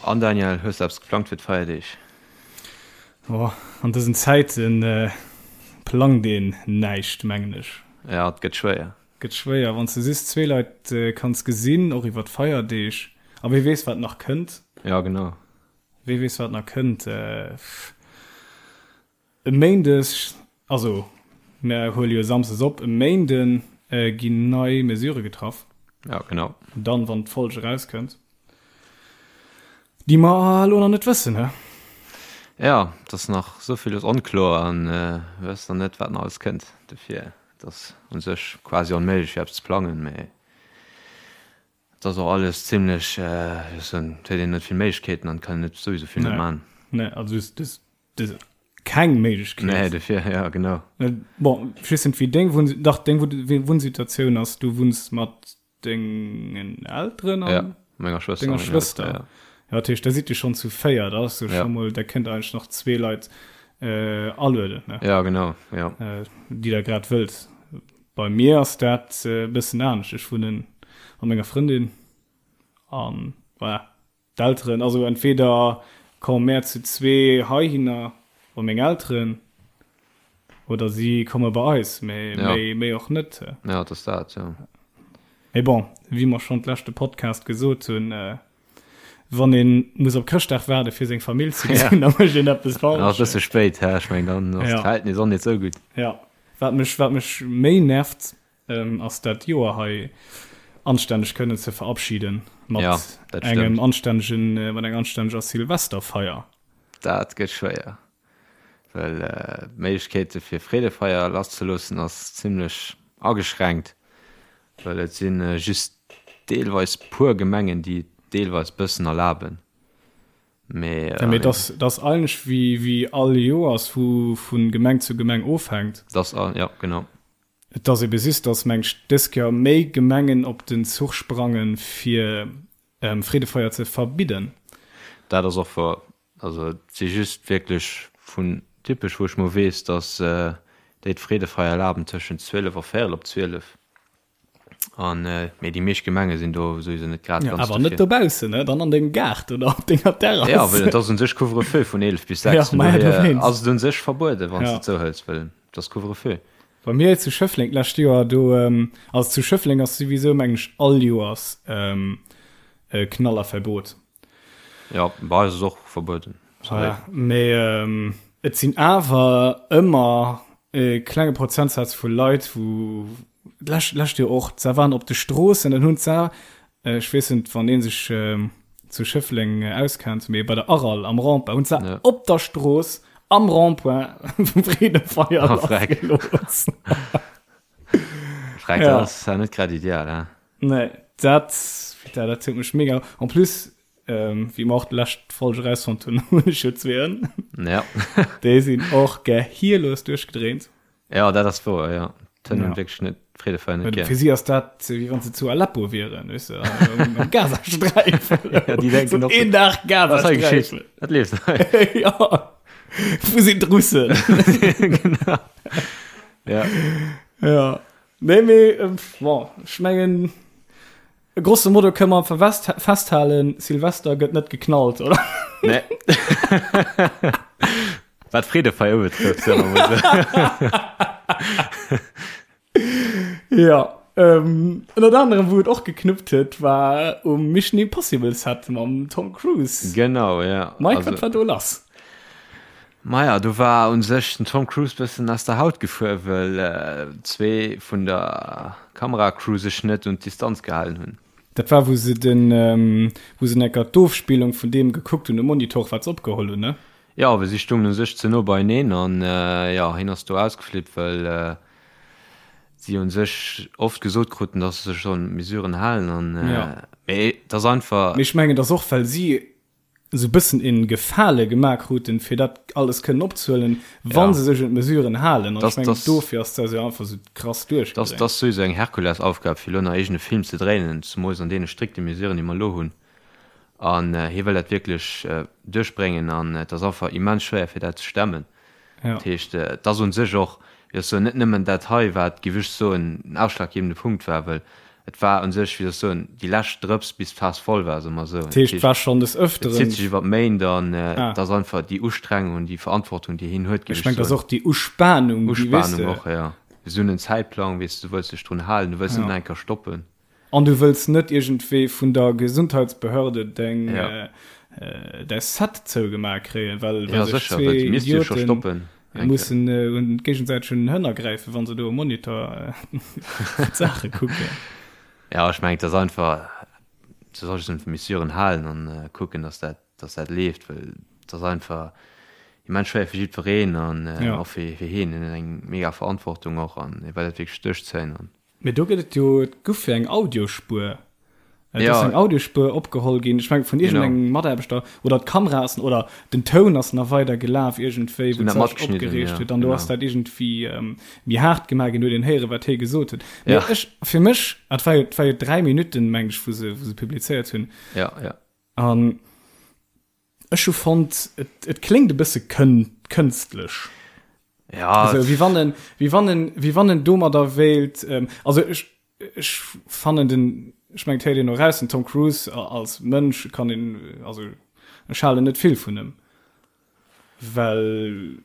An Daniel, hues de eppes geplangt fir d'Feierdeeg? Oh, an dësen Zäiten plangt een näischt, mengen ech. Ja, et gëtt schwéier. Gëtt schwéier, wann s de just zwee Leit kanns gesinn, och iwwer d'Feierdeeg. A wee weess, wat nach kënnt. Ja, genau. Wee weess, wat nach kënnt. E Méindeg, also mär huele jo samsdes op, e Méinde ginn nei Mesurë getraff. Ja, genau. Dann, wann d'Folg erauskënnt. Déi mer elo nach net wëssen, he? Ja, et ass nach esou villes onkloer an mir wëssen nach net, wat nach alles kënnt. Dofir, et ass u sech quasi onméiglech, fir eppes ze plangen, mee et ass och alles zimlech, wéi soll ech soen, et huet een net vill Méiglechkeeten an et kann een net souwisou vill net man. Nee, also du hues keng Méiglechkeet. Nee, dofir, ja, genau. Bon, ech weess net, wéi deng Wunn, dach, deng Wunnsituatioun ass, du wunns mat Dengen Elteren an ja, menger Schwëster. Denger Schwëster. Ja. Ja, dat heescht, da sidd Dir schonn zu 4, da ass jo ja. scho mol, da kënnt eigentlech nach zwee Leit äh, alueden, ne? Ja, genau, ja. Äh, déi der grad wëllt. Bei mir ass dat e äh, bëssen anescht. Ech wunnen mat menger Frëndin an voilà. D'Elteren, also entweder komme mär zu zwee heihinner bei meng Elteren oder si komme bei eis, mee Ja. méi, méi och net. Ja, et ass dat, jo. Mee bon, wéi mer schonn d'leschte Podcast gesot hunn, wann ee muss op Chrëschtdag waarde fir seng Famill ze gesinn, da mécht een eppes Dann ass e falsch. bësse spéit, hä? Ech mengen, dann ass Ja. d'Verhältnis och net esou gutt. Ja, wat mech, wat mech méi nervt, ass dat Joer hei anstänneg kënnen ze verabschieden mat ja, engem anstännegen äh, mat enger anstänneger Silvesterfeier. Dat gëtt schwéier, well äh, d'Méiglechkeete fir Freedefeier lasszeloossen ass zimmlech ageschränkt, well et sinn äh, just deelweis puer Gemengen, déi et deelweis bëssen erlaben. Mee, äh, ja, mee das, das eigentlech wéi, wéi all Joers vu, vun Gemeng zu Gemeng ofhänkt. Das, ja, genau. Et ass ebe just, datt meng ech dës Kéier méi Gemengen op den Zuch sprangen, fir Freedefeier ze verbidden. Dat ass och wouer. Also et si just wierklech vun Dippech, wou ech mol weess, datt déi d'Freedefeier erlaben tëschent 12 a véierel op 12. An mee déi meescht Gemenge sinn do souwisou net grad ganz dofir. Awer net dobaussen, ne? Dann an dengem Gaart oder op denger Terrass. Ja, well et ass un sech Couvre-feu vun 11 bis 6. Ja, ma ja, dowéinst. Ass et un sech verbueden, wann s de zouhëls, well et ass Couvre-feu. Bei mir zu Schëffleng d'lescht Joer do, also zu Schëffleng ass souwisou mengen ech all Joers Knallerverbot. Jo, bei eis ass och verbueden. Voilà, mee et sinn awer ëmmer e klenge Prozentsaz vu Leit, wou d'lescht d'lescht Joer och, se waren op de Stroossen an hunn se, ech weess net wann ee sech zu Schëffleng auskennt, mee bei der Aral am Rond-point hunn se Ja. op der Strooss am Rond-point Freedefeier Oh, freck. lassgelooss. Freck, Ja. dat ass ja net grad ideal, hè? Nee, dat, putain, dat huet mech mega. En plus, ähm, wéi mer och d'lescht Folg erausfonnt hunn, hunn ech jo zwee Hënn. Ja. Déi sinn och gehirlos duerchgedréint. Ja, dat ass wouer, ja. D'Hënn hunn Ja. wierklech net d'Freedefeier net gär. Fir si ass dat, wéi wann se zu Aleppo wieren, weess de, am, am Gazasträifen. Ja, déi denken So och een Dag Was hei geschitt? Gazasträifen. Wat leeft hei? ja. Wou sinn d'Russen? Genau. Ja. Ja. Nee, mee, bon, ech mengen, grosso modo kënne mer verwest festhalen, Silvester gëtt net geknallt, oder? Nee. Wat Freedefeier ubetrëfft, soe mer mol esou. Ja, ähm, ënnert anerem, wou et och geknuppt huet, war um Mission Impossible Set mam Tom Cruise. Genau, ja. Mike, Also- wat war do lass? Maja, do war un sech den Tom Cruise bëssen aus der Haut gefuer, wëll zwee vun der Kameracrew sech net un d'Distanz gehalen hunn. Dat war wou se den, wou se enker d'Ofspillung vun deem gekuckt hunn um Monitor wat se opgeholl hunn, ne? Jo, well si stungen un sech ze no beieneen an jo, hien ass do ausgeflippt, well si un sech oft gesot kruten, dass se sech sollen un d'Mesuren halen an mee et ass einfach. Mee ech mengen, et ass och well si esou bëssen een Gefale gemaach kruten, fir dat alles kënnen opzehuelen, wa se sech un d'Mesuren halen. An ech mengen, dofir ass dat jo einfach esou krass duerchgedréint. Dat ass souwisou eng Herkulesaufgab, fir elo nach eegene Film ze dréinen, zemools an deene strikte Mesuren, déi mer elo hunn. An hie wëll dat wierklech duerchbréngen an et ass einfach immens schwéier, fir dat ze stemmen. Dat heescht, et ass u sech och, wéi ech soen, net nëmmen dat hei, wat, géif ech soen, den ausschlaggebende Punkt war, well. Et war un sech, wéi soll ech soen, déi lescht Drëps bis d'Faass voll war, soe mer esou. Dat heescht, et war schonn des Ëfteren. Et zitt sech iwwer d'Méint an et ass einfach déi Ustrengung an déi Verantwortung, déi hien huet, géif ech soen. Ech mengen, et ass och déi Uspanung, déi, weess de. Uspanung och, jo. Esou en Zäitplang, weess de, du wëlls dech drun halen, du wëlls net nach eng Kéier stoppen. An du wëlls net iergendwéi vun der Gesundheitsbehörde deng, däi Set zougemaach kréien, well sech zwee Idioten mussen un géigesäiteg un den Hënner gräifen, wa se do um Monitor d'Saache kucken. Jo, ech mengen, et ass einfach, du solls dech un d'Mesuren halen an kucken, dass dat, dass dat leeft, well et ass einfach immens schwéier fir jiddwereen an och fir hien. Hien huet eng mega Verantwortung och an hie well dat wierklech duerchzéien. Mee do gëtt et jo, et guff jo eng Audiospuer. Et ass eng Audiospuer opgeholl ginn, ech mengen vun iergendengem Mataarbechter, oder d'Kamera ass, oder den Toun ass nach weider gelaf iergendwéi, wou d'Sach opgereegt huet, an do ass dat iergendwéi méi haart gemaach ginn, huet een héieren, wat hie gesot huet. Mee ech, fir mech, et war jo, et war jo 3 Minutten, meng ech, wou se, wou se publizéiert hunn. An Ech hu fonnt, et, et kléngt e bësse kën, kënstlech. Ja. Also, wéi wann en, wéi wann en, wéi wann en domadder wéilt, ähm, also ech, ech fannen den, ech mengen, et héiert een och raus, den Tom Cruise als Mënsch kann een, also ech halen net vill vun em, well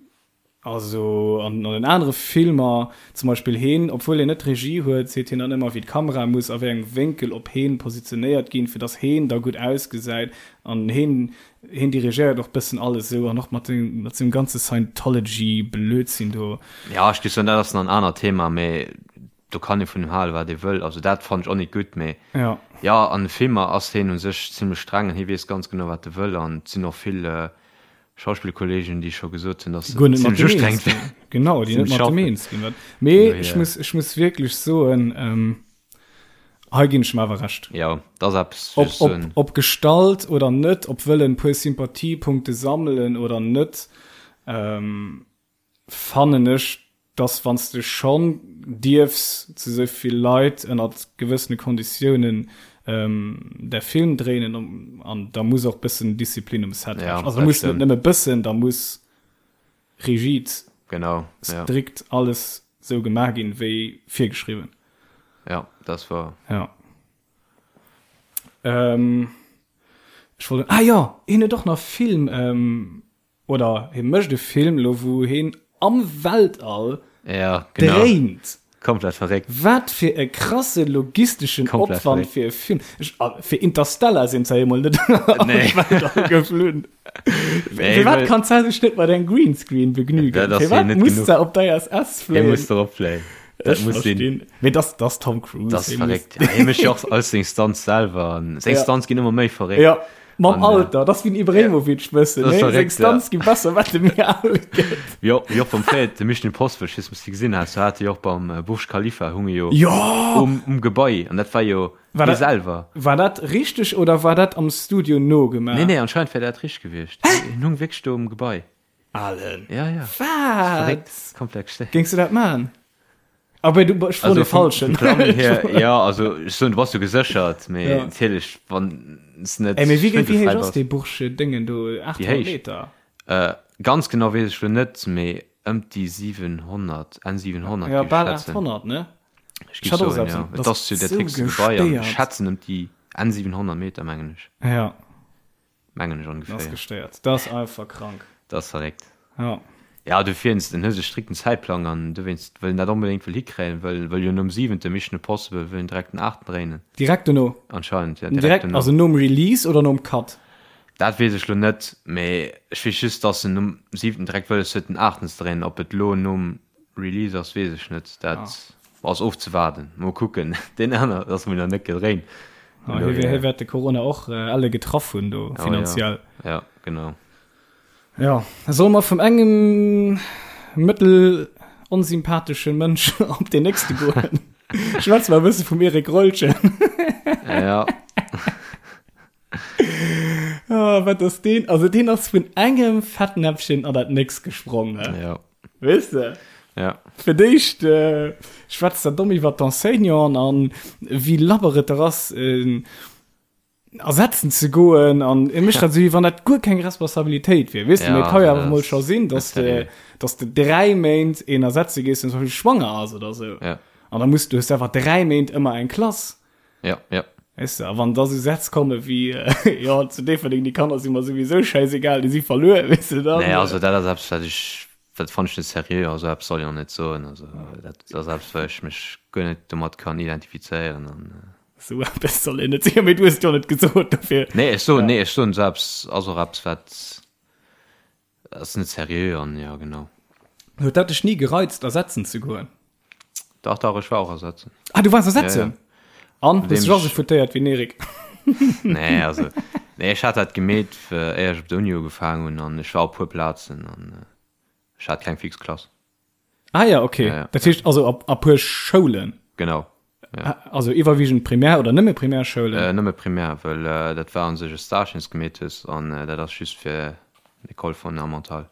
Also an den anere Filmer, zum Beispill heen, obwuel hien net d'Regie huet, seet hien dann ëmmer wéi d'Kamera muss a wéi engem Wénkel op heen positionéiert ginn, fir dass heen da gutt ausgesäit. An heen, heen dirigéiert och bëssen alles esou an och mat sengem, mat sengem ganze Scientology-Blödsinn do. Ja, ech géif soen, dat ass nach en anert Thema, mee do kann ee vun him halen, wat ee wëll. Also dat fannen ech och net gutt, mee Ja. jo, an de Filmer ass heen u sech zimlech streng an hie weess ganz genau, wat e wëll an et sinn och vill Schauspillkollegen, déi scho gesot hunn, dass se zimmlech ustrengend wär. Genau, déi net mat dem eens ginn. Mee ech muss, ech muss wierklech soen, ähm, hei ginn ech em awer Recht. Jo, dat ass eppes, wéi ech soen. Ob, ob gestallt oder net, ob wëllen e puer Sympathiepunkte sammelen oder net, ähm, fannen ech, dass wann s de schonn dierfs zu esou vill Leit ënnert gewëssene Konditiounen däi Film dréinen, an da muss och bëssen Disziplin um Set herrschen. Also da muss net nëmme bëssen, da muss rigid, genau, strikt alles esou gemaach ginn, wéi virgeschriwwen. Jo, dat ass wouer. Jo. Ech wollt, ah jo, hien huet och nach Film. Oder hie mécht e Film elo wou hien am Weltall ja, genau. dréint. Komplett verréckt. Wat fir e krasse logisteschen Komplett Opwand fir e Film. Ech, ah, fir Interstellar sinn se emol net am nee. Weltall geflunn. Nee, fir wat kann se sech net mat engem Greenscreen begnügen? Dat Fir wat muss se op der ISS fléien? Hie muss dorop fléien. Dat muss sinn. Mee das, das Tom Cruise. Das verréckt. Ja, hie mécht jo och alles seng Stunts selwer. Seng ja. Stunts ginn ëmmer méi verréckt. Ja. Mam Alter, dat ass wéi den Ibrahimovic bëssen, nee? Seng Stunts gi besser, wat e méi al gëtt. Jo, wéi och beim Fred, de Mission Impossible, ech weess net, ob s de gesinn has, do hat e jo och beim Burj Khalifa hung e jo Jo! um, um Gebai an dat war jo War hie dat, selwer. war dat richteg oder war dat am Studio nogemaach? Nee, nee, anscheinend wär dat richteg gewiescht. Hien hung wierklech do um Gebai. Alen. Ja, ja. Wat? Verréckt, komplett gestéiert. Géings du dat maachen? Aber du, ech froen Also de Falschen. vum Plangen hier, ja, also ech soen, du bass jo geséchert, mee Ja. natierlech, wann s net Ey, mee wéi, wéi héich schwindelfräi ass bass. dee Burj Déngen do? Déi 800 héich? Meter? Äh, ganz genau weess ech lo net, mee ëm déi 700, Enn 700 Ja, géif ech bal schätzen. 800, ne? Ech Ech géif hat och soen, esou ja. eppes. Et Dat ass jo ass dat sou héchste Gebai an ech gestéiert. schätzen ëm déi Enn 700 Meter, mengen ech. Ja. Mengen ech Dat ass ongeféier. gestéiert. Dat ass einfach krank. Dat ass verréckt. Ja. Ja, dofir en huet e strikten Zäitplang an dowéinst wëll en dat onbedéngt wëll hikréien, wëll wëll jo nom siwente Mission Impossible wëll en direkt den aachten dréinen. Direkt dono? Anscheinend, ja, direkt Direkt, dono. also nom Release oder nom Cut? Dat weess ech lo net, mee ech weess just, dass en nom siwenten direkt wëlles huet den aachten ze dréinen. Ob et lo nom Release ass, weess ech net. Dat ass ofzewaarden. Mol kucken. Deen aner ass mol nach net gedréint. Ah, hie hie wäert de Corona och elle getraff hunn do, finanziell. Oh, ja. ja, genau. Ja, solle mer vum engem mëttel onsympathesche Mënsch op deen nächste goen? Schwätze mer e bësse vum Eric Rollchen. Ja. Ah, wat ass deen? Also deen ass vun engem Fettnäpfchen an dat nächst gesprong, ne? Ja. Weess de? Ja. Fir d'éischt äh, schwätzt der domm iwwer d'Enseignanten an wéi labber et der ass, äh, ersetzen ze goen an e mécht dat esou, wéi wann dat guer keng Responsabilitéit wier. Weess de, Ja, mee et ka jo dat awer mol ass- scho sinn, dat dass ass de, seriö. dass de 3 Méint een ersetze gees, deen zum Beispill schwanger ass oder sou. Ja. An da muss du hues einfach 3 Méint ëmmer eng Klass. Ja, ja. Weess de, a wann da sou Sätz komme wéi, jo, zu Déifferdeng, déi Kanner si mer souwisou schäisegal, déi si verluer, weess de, dann. Nee, also dat ass eppes, wat ech, dat fannen ech net seriö, also eppes soll een och net soen, also dat ass eppes, wou ech mech guer net domat kann identifizéieren an. Sou eppes soll een net soen, mee du hues et jo net gesot, dofir. Nee, ech soen, nee, ech soen, sou eppes ass och eppes, wat. Ass net seriö an jo genau. Huet dat dech ni gereizt ersetzen ze goen? Dach dach ech war och ersetzen. Ah du waars ersetzen? Ja, ja. An hues dech och sou foutéiert wéi den Eric? Nee also nee ech hat dat gemeet éier ech op der Uni ugefaang hunn an ech war op puer Plazen an ech hat keng fix Klass. Ah ja, okay. Ja, ja. Dat heescht also op a puer Schoulen? Genau. Ja. Also iwwerwiegend Primär oder nëmme Primärschoulen? Äh, nëmme Primär, well äh, dat war an sech e Stage, den s gemeet hues an äh, dat ass just fir l'École fondamentale.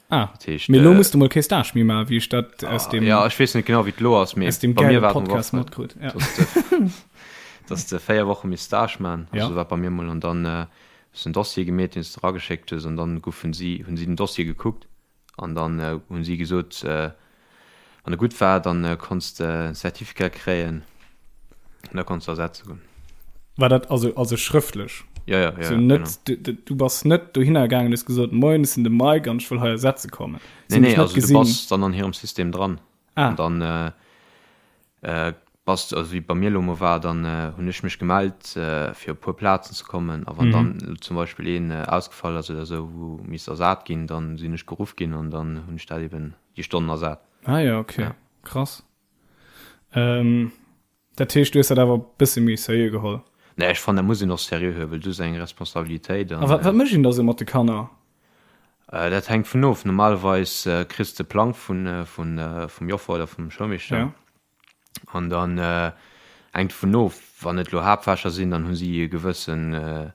Ah, dat heescht, mee lo äh, muss du mol kee Stage méi maachen, wéi ech dat ah, aus dem Ja, ech weess net genau, wéi et lo ass, mee aus dem bei mir war Podcast matkrut. Ja. Dass de, dass de 4 Woche misst Stage maachen, also ja. war bei mir mol an dann äh, hues en Dossier gemeet, den s de erageschéckt hues an dann goufen si hunn si den Dossier gekuckt An dann hunn si gesot, wann e gutt war, dann konns de en Certificat kréien an da konns de ersetze goen. War dat also also schrëftlech? Jo, jo, jo, So net, genau. du, du bass net dohinner gaangen, hues gesot, Moien, ech sinn de Mike an ech wëll hei ersetze kommen. Nee, nee, also du bass dann an hirem System dran. Ah. An dann Bass, also wéi et bei mir elo mol war, dann hunn ech mech gemellt fir op e puer Plazen ze kommen a wann dann elo zum Beispill een ausgefall ass oder esou, wou misst ersat ginn, dann sinn ech geruff ginn an dann hunn ech dat eben déi Stonnen ersat. Ah jo, okay, ja. Krass. Ähm, dat heescht, du hues dat awer e bësse méi seriö geholl? Nee, ech fannen, dat muss een och seriö huelen, well du hues eng Responsabilitéit an. A wat, wat mécht een da sou mat de Kanner? Dat hänkt vun of. Normalerweis kriss de Plang vun, vun, vum Joffer oder vum Schoulmeeschter. Ja. An dann hänkt dovun of, wann et elo Haaptfächer sinn, dann hu si e gewëssen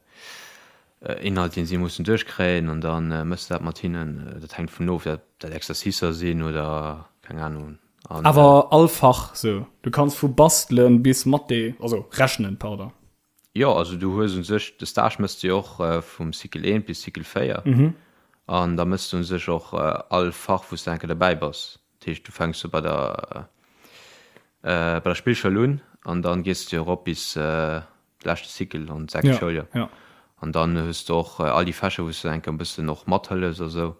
Inhalt, dee si mussen duerchkréien an da méchs de dat mat hinnen. Dat hänkt dovun of, ob dat Exercicer sinn oder keng Ahnung. An, Awer all Fach sou? Du kanns vu bastelen bis Mathé, also rechnen, pardon. Jo, also du hues u sech, de Stage méchs de jo och vum Cycle 1 bis Cycle 4 an da méchs de u sech och all Fach, wou s de eng Kéier derbäi bass. Dat heescht, du fänks jo bei der bei der Spillschoul un an dann gees de jo erop bis de leschte Cycle an d'sechst Ja, Schouljoer. ja. An dann hues de och all déi Fächer, wou s de eng Kéier e bëssen och mathëllefs a sou.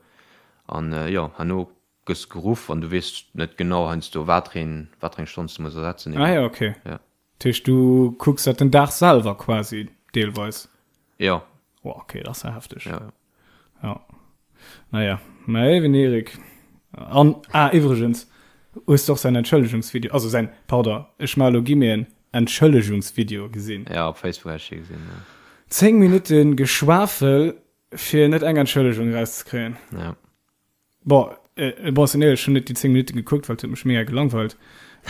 An jo, herno gëss de geruff an du weess net genau heiansdo, wat fir een, wat fir eng Stonn s de muss ersetzen Ah eben. ja, okay. Ja. Dat heescht, du kucks dat den Dag selwer quasi deelweis? Jo. Oh, okay, dat ass ja hefteg. Ja, ja. Ja. Naja, mä eben Erik. An, ah, iwwregens, hues du och säin Entschëllegungsvideo, also säin, pardon, ech maache lo Guillemeten, Entschëllegungsvideo gesinn? Ja, op Facebook hat ech dee gesinn, ja. 10 Minutte Geschwafel, fir net eng Entschëllegung erauszekréien. Ja. Bon, äh, bon, sinn éierlech, ech hunn net déi 10 Minutten gekuckt, well et huet mech mega gelangweilt.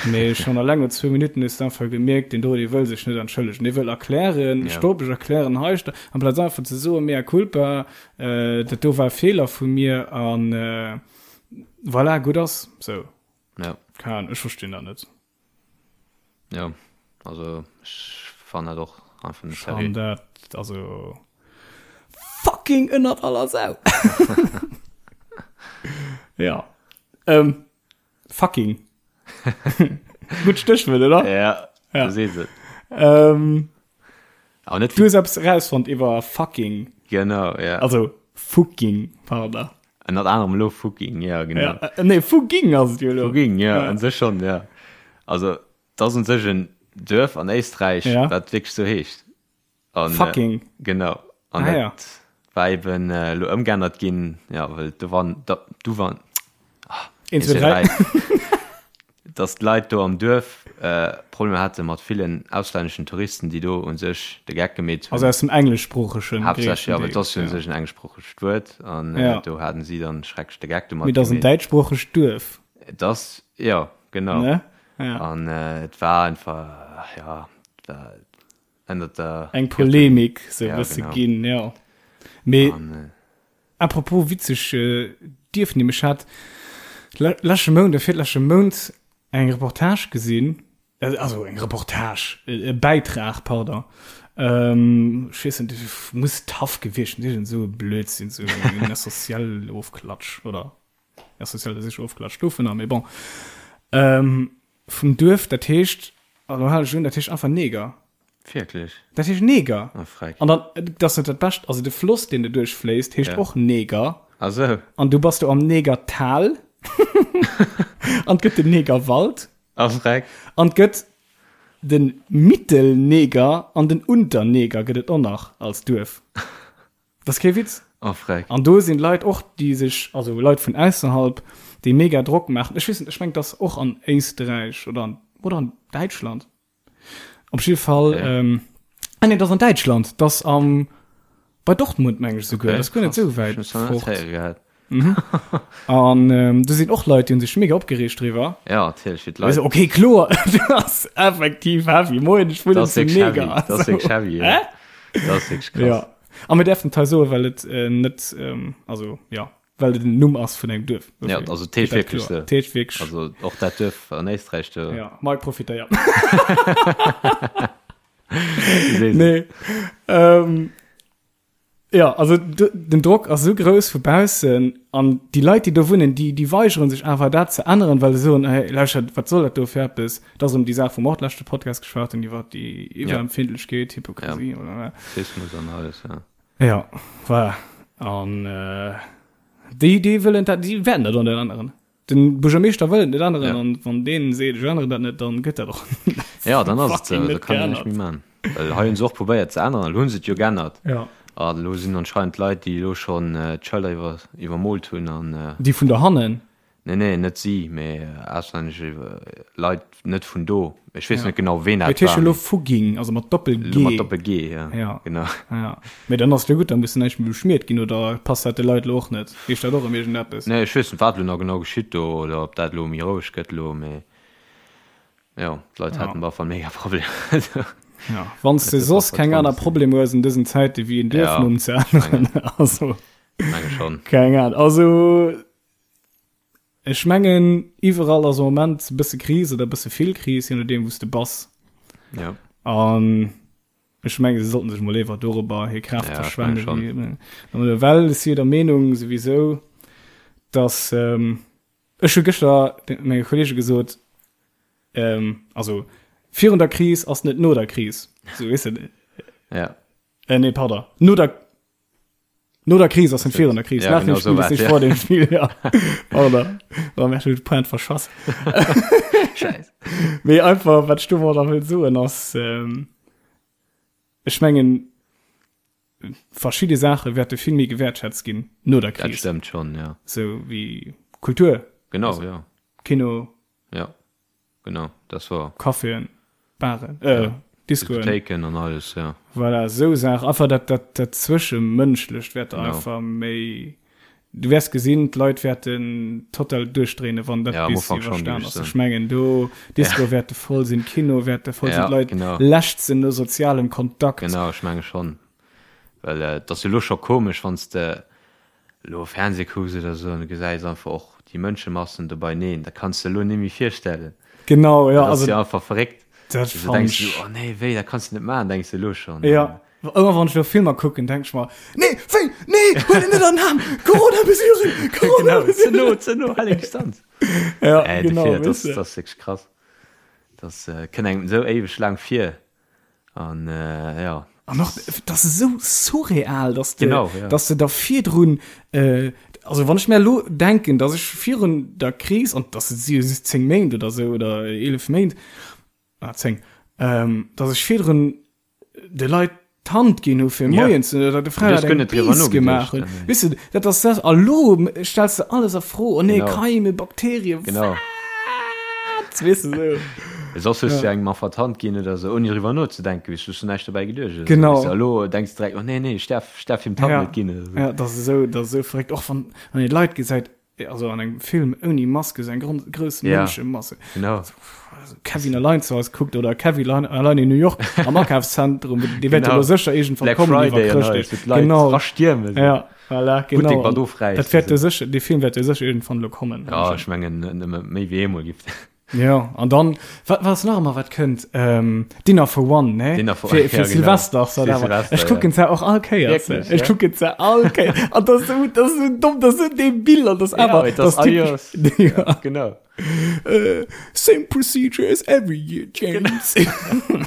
Mee schonn alleng no zwou Minutten hues de einfach gemierkt, deen do, dee wëll sech net entschëllegen. Dee wëll erklären, Ja. stopp, ech erklären hei, sto-, amplaz einfach ze soen, mea culpa, äh, dat do war e Feeler vu mir an, äh, voilà, gutt ass. Sou. Ja. Keng Ahnung, ech verstinn dat net. Ja, also ech fannen dat och einfach net seriö. Ech fannen dat, also fucking ënnert aller Sau. Ja. Ähm, fucking. Gutt Stéchwuert, oder? Ja, ja. Du sees et. Ähm, Aber net du hues eppes rausfonnt iwwer fucking. Genau, ja. Also fucking, pardon. Ënnert anerem elo Fucking, ja, genau. Ja, äh, nee, Fugging ass et jo elo. Fugging, ja, ja. an sech schon, ja. Also, dat ass un sech en Duerf an Éisträich, ja. dat wierklech sou heescht. An, äh, Fucking. Äh, genau. An ah, dat ja. war eben äh, elo ëmgeännert ginn, ja, well do waren, da, du waren, ah, 1, 2, 3. Dass d'Leit do am Duerf Problemer hate mat villen auslänneschen Touristen, déi do u sech de Geck gemeet hunn. Also aus dem engleschsproochegen Haaptsächlech, jo, well et ass jo u sech en engleschsproochegt Wuert an do haten si dann schrecklech de Geck domat gemeet. Mee et ass en däitschsproochegt Duerf. Et ass, jo, genau. Ne? Ja. An et war einfach, jo, et war ënnert der. Eng Polemik sou e bësse ginn, jo. Mee. Apropos witzeg Dierfnimm, ech hat leschte Mount oder virleschte Mount eng Reportage gesinn, also eng Reportage, e Bäitrag, pardon, ech weess net, muss taff gewiescht sinn, iergend esou e Blödsinn, esou en Essentiel-Ofklatsch oder Essentiel ass sécher Ofklatsch dovunner, mee bon, vum Duerf, dat heescht, a lo hale ech un, dat heescht einfach Neger. Wierklech? Dat heescht Neger. Oh, freck. An dann, dat ass net dat Bescht, also de Floss, deen do duerchfléisst, heescht Ja. och Neger. Ah sou. An du bass do am Negertal. An 't gëtt den Negerwald. Ah, freck. An 't gëtt den Mittelneger an den Unterneger gëtt et och nach als Duerf. Dat ass kee Witz. Oh, freck. An do sinn Leit och, déi sech, also Leit vun ausserhalb, déi mega Drock maachen. Ech weess net, ech mengen, et ass och an Éisträich oder an, oder an Däitschland. Op jidde Fall, Okay. ähm, ah nee, dat ass an Däitschland, dat ass am, bei Dortmund meng ech esouguer, Okay, dat ass guer net krass. esou wäit Ech hunn es nach net fort. héiere gehat. An ähm, do sinn och Leit, déi hunn sech mega opgereegt driwwer. Ja, natierlech, fir Also, d'Leit. okay, kloer, dat ass effektiv heavy. Moien, ech wunnen Dat ass zu wierklech heavy. Neger. Dat ass wierklech heavy, ja. Hä? Dat ass wierklech krass. Ja. A mir däerfen et hei soen, well et äh, net, ähm, also ja, well et den Numm ass vun engem Duerf. Ja, also et heescht wierklech sou. Et heescht wierklech. Also och dat Duerf an Éisträich do. Ja, Mike profitéiert. Du sees et. Nee. Ähm, ja, also den Drock ass esou grouss vu baussen an déi Leit, déi do wunnen, déi, déi weigere sech awer dat ze änneren, well se soen, hey, lauschtert, wat soll dat do fir eppes? Dat ass erëm déi Saach, wou mer och leschte Podcast geschwat hunn, iwwer déi Iwwerempfindlechkeet, Hypokrisie, Ja. oder. Rassismus an alles, ja. Ja, voilà. An äh, déi, déi wëllen dat, déi wäerten dat och net änneren. Den Buergermeeschter wëll et net änneren Ja. an wann deen seet, ech änneren dat net, dann gëtt dat och Ja, dann ass et fucking sou, da net kann een näischt geännert. méi man. Well hei hunn se och probéiert ze änneren, elo hunn se et jo geännert. Ja. An elo sinn anscheinend Leit, déi elo schonn d'Schëlder iwwer, iwwermoolt hunn an. Déi vun dohannen? Nee, nee, net si, mee auslännesch Leit, net vun do. Ech weess Ja. net genau, ween Mee dat et heescht war. jo elo mee Fugging, also mat Doppel-G. Elo mat Doppel-G, ja. Ja. Genau. Ja. Mee dann ass et jo gutt, da muss näischt méi beschmiert ginn, oder passt dat de Leit elo och net? Heescht dat och erëm iergendeppes? Nee, ech weess net, wat elo nach genau geschitt do, oder ob dat elo méi roueg gëtt elo, mee jo, d'Leit Ja. haten op alle Fall mega Problemer. Ja, wann s de soss keng aner Problemer hues an dësen Zäite wéi en Duerfnumm ze änneren, also. Menge schonn. Keng Ahnung. Also. Ech mengen iwwerall ass am Moment e bësse Kris oder e bësse vill Kris, je nodeem wou s de bass. Ja. An ech menge se sollten sech mol éiwer dorobber hir Kraaft Ja, ech menge verschwende schon. wéi well ech si der Meenung souwisou, dass ech hu gëschter menge Kollege gesot, also virun der Kris ass net no der Kris, sou weess de. Ja. Nee, pardon, no der. No der Kris ass virun der Kris. Ja, Nach dem genau Spiel so ist nicht ja. vor dem Spiel. Ja. Oder da merkst du Point verschass. Scheiß. Mee einfach wat du da will soen ass ähm, ech mengen verschiedene Sache wäerte vill méi gewäertschätzt ginn no der Dat Kris. stimmt schon, ja. So wie Kultur, Genau, Also- ja. Kino, Ja. Genau, das war. Caféen, Baren, äh, Ja. Discoen. Diskothéiken an alles, ja. Voilà, esou Saachen. Einfach dat, dat, dat Zwëschemënschlecht wäert Genau. einfach méi. Du wäers gesinn, d'Leit wäerten total duerchdréinen, wann dat Ja, am bis Ufank schon, iwwerstan géif ass. ech Ech mengen, do, Discoe wäerte voll sinn, Kino wäerte voll sinn, Ja, d'Leit genau. lechzen no sozialem Kontakt. Genau, ech menge schon. Well et ass jo elo scho komesch, wann s de elo Fernseh kucks oder esou an du gesäis einfach och déi Mënschemassen do beineen, dat kanns de elo net méi virstellen. Genau, ja, Dat ass also jo einfach verréckt. dat Du fand denkst ech. du, oh nee, wéi, dat kanns du net maachen, denks de elo schonn. Ja, ëmmer wann ech elo Filmer kucken, denk ech mer, Nee, wéi, nee, huel en net an den Aarm, Corona-Mesuren, Genau, ze Corona-Mesuren. no, ze no, hal eng Distanz. Ja, Äh, genau, dofir, dat weess de. ass wierklech krass. Dat kënnt engem esou éiweg laang vir. An äh, ja. An och, dat ass esou surreal, dass de, Genau, ja. dass de da virdrun, äh, also wann ech mir elo denken, dass ech virun der Kris, an das si jo just 10 Méint oder sou, oder 11 Méint, ah 10, ähm, dass ech virdrun de Leit d'Hand ginn hu fir Ja. Moien ze oder de Frau Du hues guer eng net driwwer Biis gemaach nogeduecht, hunn. nee. Weess de, dat ass dat, a lo stells de alles a Fro, oh nee, Genau. Keime, Bakterien, Genau. wat? Weess de, sou. Soss hues du engem einfach d'Hand ginn oder sou, ouni driwwer nozedenken, weess du, hues du näischt dobäi geduecht oder sou, Genau. weess du. A lo denks du direkt, oh nee, nee, ech däerf, ech däerf him d'Hand Ja. net ginn oder sou. Ja, dat ass esou, dat ass esou verréckt. Och wann, wann een Leit gesäit, also an engem Film ouni Maske, sou eng grond, grouss Ja. Mënschemasse. Genau. Also Kevin allein zu Hause kuckt oder Kevin allein, allein in New York am Akafszentrum, dee wäert Genau. jo lo sécher iergendwann Black kommen iwwer Friday an Chrëschtdeeg. alles, wou d'Leit Genau. rastiermen. Ja, voilà, Buttek genau. mat ofräissen, Dat wäert jo sou. sécher, dee Film wäert jo sécher iergendwann lo kommen. Ja, ech mengen, net nëmme méi wéi eemol giff. Ja, an dann, wat, wat ass nach ëmmer, wat kënnt? Ähm, Dinner for One, ne? Dinner for Fir, One, fir ja, genau. Silvester, ass dat Fir awer. Silvester, Ech kucken ja. se och all Kéiers. Wierklech, Ech ja? kucken se all Kéiers. An dat ass esou, dat ass esou domm, dat ass esou debil, an dat ass Ja, awer, mee dat ass dat ass typesch. all Joers. Ja. Genau. Äh, same procedure as every year, James.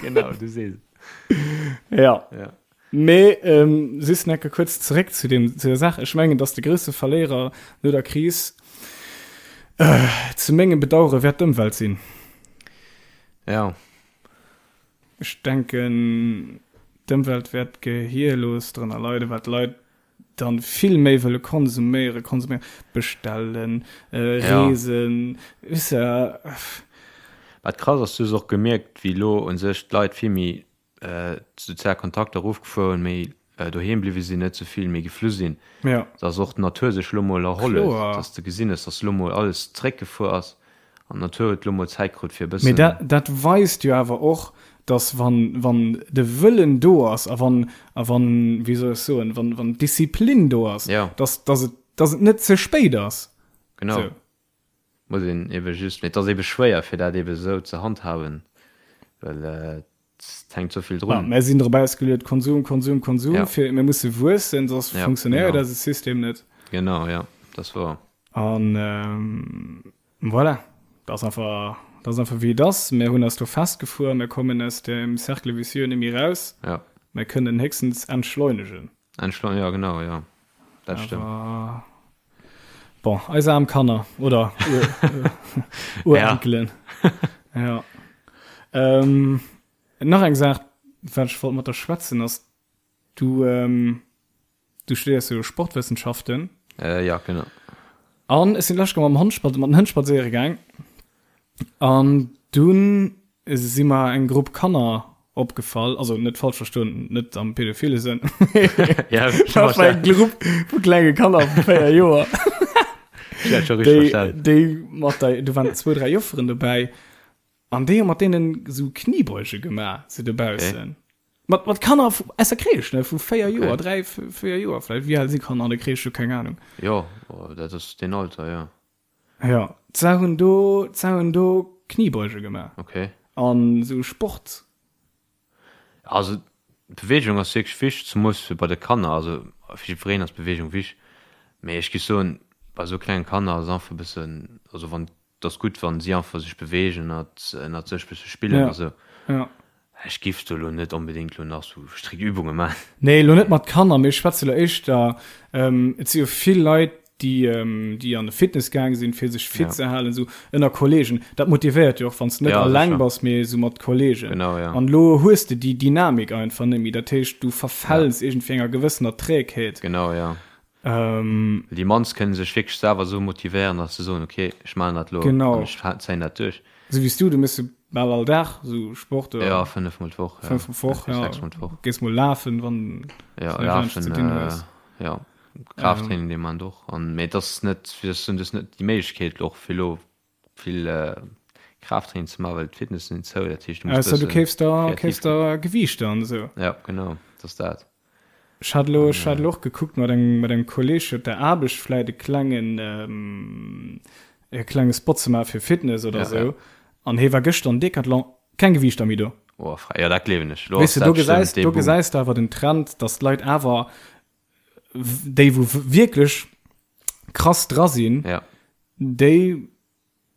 Genau, du sees et. Ja. Ja. Mee ähm, just nach kuerz zeréck zu dem, zu der Saach. Ech mengen, dass de grousse Verléierer no der Kris äh, zu mengem Bedauere wäert d'Ëmwelt sinn. Ja. Ech denken, d'Ëmwelt wäert gehierlos drënner leiden, well d'Leit dann vill méi wëlle konsuméieren, konsuméieren, bestellen, äh, Ja. reesen, weess de. Wat krass ass, du hues och gemierkt, wéi elo u sech d'Leit vill méi d'sozial Kontakter erofgefuer hunn, méi doheem bliwwe sinn, net sou vill méi geflu sinn, Ja. dass och d'Natur sech elo mol erholl huet, Kloer. dass de gesinn hues, dass elo mol alles zeréckgefuer ass an d'Natur huet elo mol Zäit krut fir e Mee bëssen. dat, dat weist jo awer och, dass wann, wann de Wëllen do ass a wann, a wann, wéi soll ech soen, wann, wann d'Disziplin do ass, Ja. dass, dass et, dass et net ze spéit ass. Genau. Sou. Muss een ebe just, mee et ass ebe schwéier fir dat ebe sou ze handhaben, well et hänkt sou vill Ja, drun. mär sinn drop ausgeluet, Konsum, Konsum, Konsum, Ja. fir mir musse wuessen, soss Ja, funktionéiert genau. eise System net. Genau, ja, dat ass wouer. An voilà, dat ass einfach, dat ass einfach wéi et ass. Mär hunn eis do festgefuer, mär kommen aus dem Cercle vicieux net méi raus. Ja. Mär kënnen héchstens entschleunegen. Entschleunegen, ja genau, ja, dat stëmmt. Awer bon, eis aarm Kanner oder Urenkelen. Ja. Ähm, nach eng Saach, wat ech wollt mat der schwätzen, ass, du, ähm, du studéiers jo Sportwëssenschaften. Äh, ja, genau. An ech sinn d'lescht Kéier mam Hond, mat den Hënn spadséiere gaang. An dunn si mer eng Grupp Kanner opgefall, also net falsch verstoen, net am pädophile Sënn. Ja, Dat war eng Grupp vu klenge Kanner vu 4 Joer. Ja, schon richtig Déi, verstanden. déi mat der, do waren zwou, dräi Jofferen dobäi. An déi hu mat deenen esou Kniebeuge gemaach, sou dobaussen. Okay. Mat, mat Kanner vu, aus der Crèche, ne, vu 4 Okay. Joer, 3, 4 Joer vläicht. Wéi al si Kanner an der Crèche? Ech hu keng Ahnung. Jo, dat ass deen Alter, jo. Jo, se hunn do, se hunn do Kniebeuge gemaach. Okay. An esou Sport. Also Beweegung ass wierklech wichteg, zemoos fir bei de Kanner. Also fir jiddwereen ass Beweegung wichteg, mee ech géif soen, bei esou klenge Kanner ass einfach e bëssen, also wann, et ass gutt, wann si einfach sech beweegen ënnert, ënnert sech bësse spillen Ja, a sou. ja. Ech giff do lo net onbedingt lo nach sou strikt Übunge man. Nee, lo net mat Kanner, mee ech schwätze lo éischter, et si jo vill Leit, déi, déi an de Fitness gaang sinn, fir sech fit Ja. ze halen, sou ënner Kollegen. Dat motivéiert jo och, wann s de net Ja, alleng sécher. bass, mee sou mat Kollegen. Genau, ja. An lo hues de déi Dynamik einfach net méi. Dat heescht, du Ja. verfäls iergendwéi enger gewëssener Trägheet. Genau, ja. Ähm. Déi mannst kënne sech wierklech selwer esou motivéieren, datt se soen, ok, ech maachen dat elo an Genau. ech zéien dat duerch. Esou wéi s du, du méchs jo bal all Dag esou Sport oder? Ja, fënnefmol d'Woch, ja. Fënnefmol d'Woch, ja. Sechsmol d'Woch. Gees mol lafen, wann Ja, s du näischt anescht ze lafen, dinn hues. ja, Kraafttraining, dee maachen och. An, mee et ass net, wéi soll ech soen, du hues net déi Méiglechkeet och fir elo vill Kraafttraining ze maachen, well d'Fitnessen sinn zou, dat heescht, du muss Ausser du bësse keefs der, kreativ keefs ginn. der Gewiichter an esou. Ja, genau, et ass dat. Ech hat elo, ech hat elo och gekuckt mat engem, mat engem Kolleg op der Aarbecht vläit e klengen, e klenge Spot ze maache fir Fitness oder Ja, esou. ja. An hee war gëschter an Decathlon, keng Gewiichter méi do. Oh, frei, ja, dat gleewen ech. Elo Weess ass de, do dat bestëmmt gesäis, dee do Boom. gesäis de awer den Trend, datt d'Leit awer, déi wou wierklech krass dra sinn, Ja. déi,